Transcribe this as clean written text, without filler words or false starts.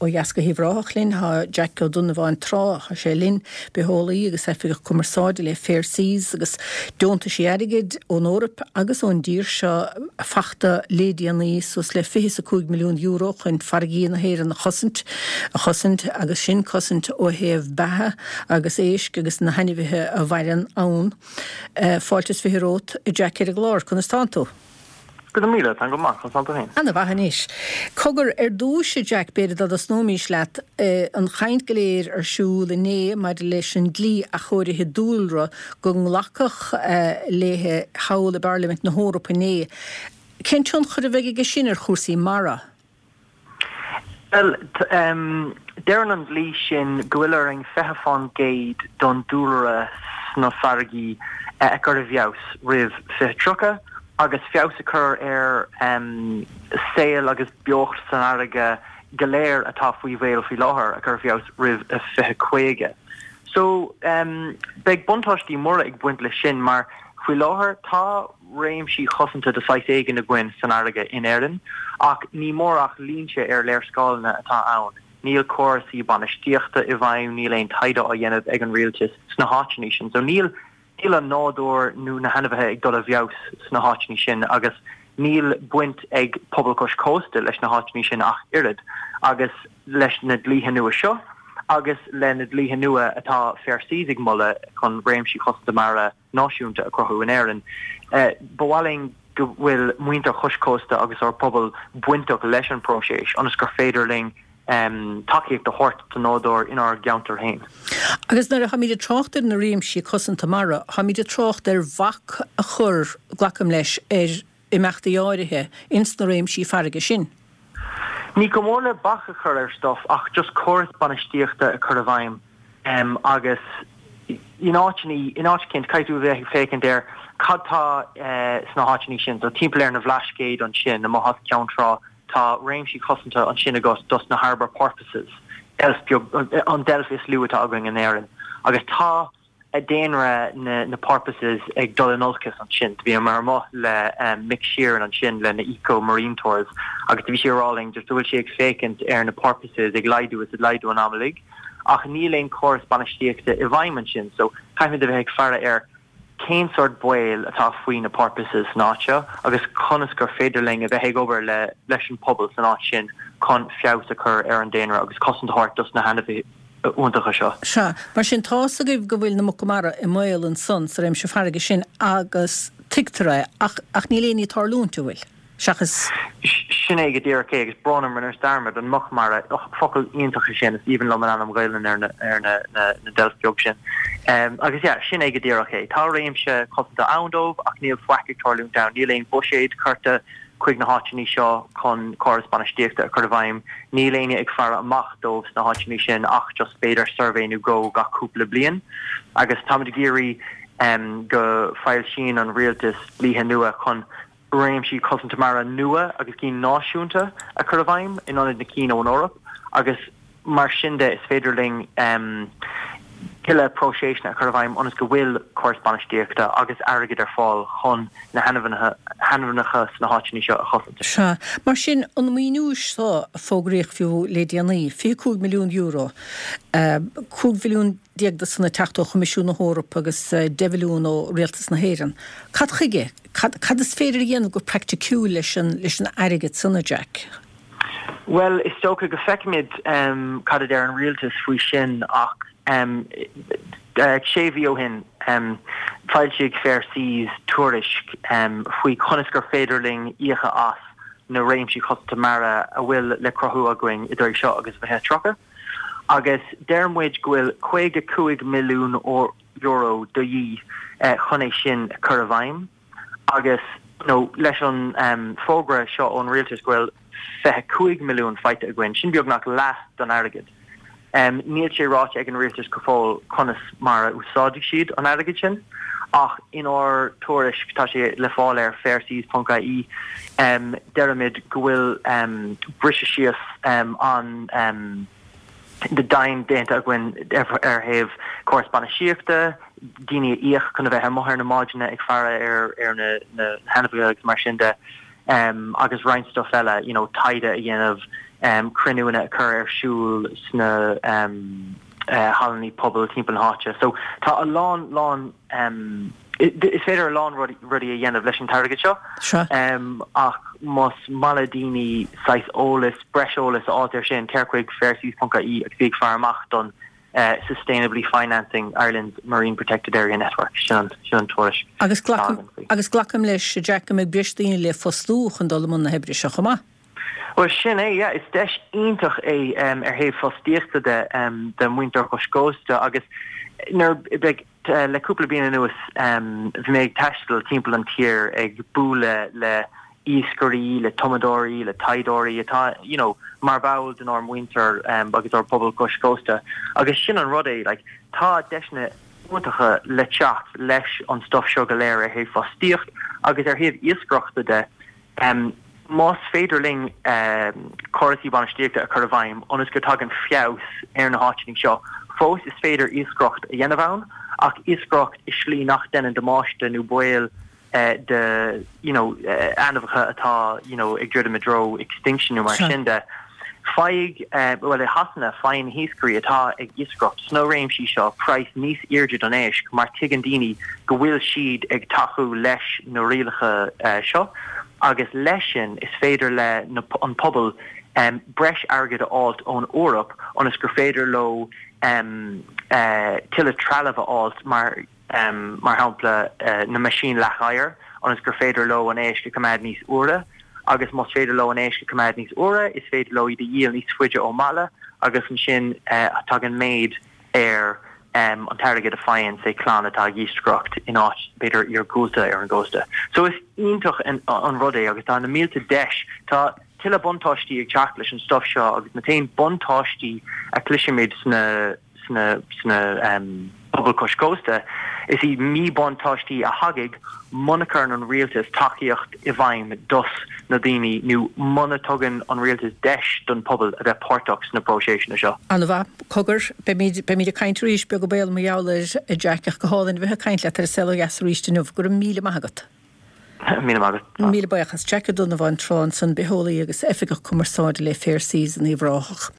ó dheas go hUíbh Ráthach linn. Tá Jack Ó Donnabháin Trá, tá sé linn, bitheolaí agus oifigeach cumarsáide le Fair Seas agus deontaisí airgid ón Eoraip agus ón dtír seo fachta le déanaí, suas le €25 milliún chun farraigí na hÉireann a chosaint, a chosaint agus sin cosaint ó thaobh beatha agus éisc agus na hainmhithe a mhaireann ann. Fáilte is 20 romhat, a Jack ar an gclár. Conas tánn tú? Go raibh míle, táim go maith, conas tánn tú féin? Ana mhaith anois. Cogar, ar dtúis, a Jack, b'fhéidir dá dtosnóimís leat, an chaint go léir ar siúl inné maidir leis an dlí athchóirithe dúlra go nglacadh léi thall i bParlaimint na hEorpa inné. Cén tionchar a bheidh aige sin ar chúrsaí mara? Bhuel, deireann an dlí sin go bhfuil orainn 20% don dúlra sna farraigí a chur i bhfeabhas roimh 2030 agus feabhas a chur ar saol agus beocht san fharraige go léir atá faoi bhaol faoi láthair a chur i bhfeabhas roimh 2050. So, beidh buntáistí móra ag baint leis sin mar faoi láthair tá réimsí cosanta de saghas éigin againn san fharraige in Éirinn, ach ní mór ach línte ar léarscáileanna atá ann. Níl córasaí bainistíochta i bhfeidhm, níl aon taighde á dhéanamh ag an rialtas sna háiteanna sin. So níl níl an nádúr nó na hainmhithe ag dul i bhfeabhas sna háiteanna sin agus níl baint ag pobal cois cósta leis na háiteanna sin ach oiread. Agus leis na dlíthe nua seo agus le na dlíthe nua atá Fair Seas ag moladh chun réimsí cosanta mara náisiúnta a chruthú in Éirinn. Ba mhaith linn go bhfuil muintir chois cósta agus ár bpobal bainteach leis an bpróiseas ionas gur féidir linn tacaíocht a thabhairt don nádúr inár gceantar féin. Agus nuair a tháimid ag trácht ar na réimsí cosanta mara, tháimid ag trácht ar bhac a chur, glacaim leis, ar imeachtaí áirithe ins na réimsí farraige sin. Ní chomh mór le bac a chur ar stuff ach just córas bainistíochta a chur i bhfeidhm agus in áiteanna, in áit eicínt, caithfidh tú a bheith ag féachaint ar cad tá sna háiteanna sin. So timpeall ar na Bhlascaoid ansin, amuigh as Ceann Trá, tá réimsí cosanta ansin agat dos na harbour porpoises, deilf beag, an deilf is lú atá againn in Éirinn. Agus tá daonra na porpoises ag dul in olcas ansin. Do bhíomar amuigh le Mick Sheeran ansin le na Eco Marine Tours agus do bhí sé ag rá linn just go bhfuil sé ag féachaint ar na porpoises ag laghdú is ag laghdú an am uilig ach níl aon córas bainistíochta i bhfeidhm ansin so caithfimid a bheith ag faire ar cén sórt baol atá faoi na porpoises san áit seo agus conas gur féidir linn a bheith ag obair le leis an pobal san áit sin chun feabhas a chur ar an daonra agus cosaint a thabhairt dos na hainmhithe iontacha seo. Sea. Mar sin, tá's agaibh go bhfuil na muca mara i mbaol ansan sa réimse farraige sin agus tuigtear é, ach, ach níl aon ní ag tarlúint, an bhfuil? Seachas. Sin é go díreach é, agus brón orm, rinneas dearmad, an muc mara, och, focal iontach é sin, is aoibhinn liom an ainm Gaelainn ar na, ar na, na, na deilf beag sin. Agus yeah, sin é go díreach é. Tá réimse cosanta ann dóibh ach níl faic ag tarlúint ann, níl aon bhuiséad curtha chuig na háiteanna seo chun córas bainistíochta a chur i bhfeidhm. Níl éinne ag faire amach dóibh sna háiteanna sin ach just b'fhéidir suirbhé nó dhó gach cúpla bliain. Agus táimid ag iarraidh go foilsíonn an rialtas dlíthe nua chun réimsí cosanta mara nua agus cinn náisiúnta a chur i bhfeidhm in ionad na cinn ón Eoraip agus Mar sin de, is féidir linn tuilleadh próiseasanna a chur i bhfeidhm ionas go bhfuil córas bainistíochta agus airgead ar fáil chun na hainmhithe sna háiteanna seo a chosaint. Sea. Mar sin, an maoiniú seo a fógraíodh fiú le déanaí, €25 milliún, 15 mhilliún de san ag teacht ó Choimisiún na hEorpa agus 10 mhilliún ó Rialtas na hÉireann, cad chuige? Cad is féidir a dhéanamh go praiticiúil leis an airgead san, a Jack? Bhuel, is dócha go feicfimid cad a deir an rialtas faoi sin ach sé mhí ó shin foilsigh Fair Seas tuairisc faoi conas gur féidir linn íocadh as na réimsí cosanta mara a bhfuil le cruthú againn idir seo agus 2030 agus deir muid go bhfuil €55 milliún de dhíth chun é sin a chur i bhfeidhm. Agus you know leis an fógra seo ón rialtas go bhfuil 25 milliún faighte againn, sin beagnach leath don airgead. Níl sé ráite ag an rialtas go fóill conas mar a úsáidfidh siad an airgead sin, ach inár tuairisc, tá sé le fáil ar fairseas.ie, deirimid go bhfuil briseadh síos an domhain déanta againn ar thaobh córas bainistíochta, daoine a íoc chun a bheith amuigh ar na báid ag faire ar na hainmhithe agus mar sin de. Agus roinnt stuff eile, you know, taighde a dhéanamh, cruinniúanna a chur ar siúl sna hallanna pobail timpeall na háite. So tá a lán, lán, is féidir a lán rudaí a dhéanamh leis an t-airgead seo. Ach más maith le daoine saghas eolas, breis eolas a fháilt ar sin, téir chuig fairseas.ie agus bí ag faire amach don Sustainably Financing Ireland's Marine Protected Area Network, sin an tuairisc Agus atá againn faoi. Agus glacaim leis, a Jack, go mbeidh breis daoine le fostú chun dul i mbun na hoibre seo chomh maith. Bhuel, sin é, yeah. Is deis iontach é ar thaobh fostaíochta de do mhuintir chois cósta agus nuair beidh le cúpla bliain anuas bhí mé ag taisteal timpeall an tír ag bualadh le iascairí, le tumadóirí, le taighdeoirí atá you know mar bhall denár muintir agus ár bpobal cois cósta agus sin an rud é like tá deiseanna iontacha le teacht leis an stuff seo go léir ar thaobh fostaíocht agus ar thaobh iascaireachta de. Más féidir linn córasaí bainistíochta a chur i bhfeidhm ionas go dtagann feabhas ar na háiteanna seo, fós is féidir iascaireacht a dhéanamh ann ach iascaireacht i slí nach deineann damáiste nó baol de you know ainmhithe atá you know ag druidim i dtreo extinction nó mar sin de. Faigh, bhuel i Shasana faigheann na hiascairí atá ag iascaireacht sna réimsí seo praghas níos airde don éisc mar tuigeann daoine go bhfuil siad ag tacú leis na rialacha seo agus leis sin is féidir le an pobal breis airgid a fháilt ón Eoraip ionas gur féidir leo tuilleadh trealamh a fháilt mar mar shampla na meaisín leath oighir, ionas gur féidir leo an éisc a choimeád níos úire, agus más féidir leo an éisc a choimeád níos úire, is féidir leo iad a dhíol níos faide ó mbaile, agus ansin tagann méid ar an t-airgead a faigheann, say, clann atá ag iascaireacht in áit, b'fhéidir, iargúlta ar an gcósta. So is iontach an rud é agus tá na mílte deis, tá tuilleadh buntáistí ag teacht leis an stuff seo agus na t-aon buntáistí a chloisimid sna sna sna pobail cois cósta, is iad míbhuntáistí a thagann muna gcuireann an rialtas tacaíocht i bhfeidhm dos na daoine nó muna dtugann an rialtas deis don pobal a bheith páirteach sna próiseasanna seo. An-mhaith. Cogar, beimid, beimid ag caint arís, beag an baol mar gheall air, a Jack, ach go hálainn a bheith ag caint leat ar An Saol Ó Dheas arís inniu. Go raibh míle maith agat. Míle maith agat. Míle buíochas. Jack Ó Donnabháin Trá ansan, bitheolaí agus oifigeach cumarsáide le Fair Seas in Uíbh Ráthach.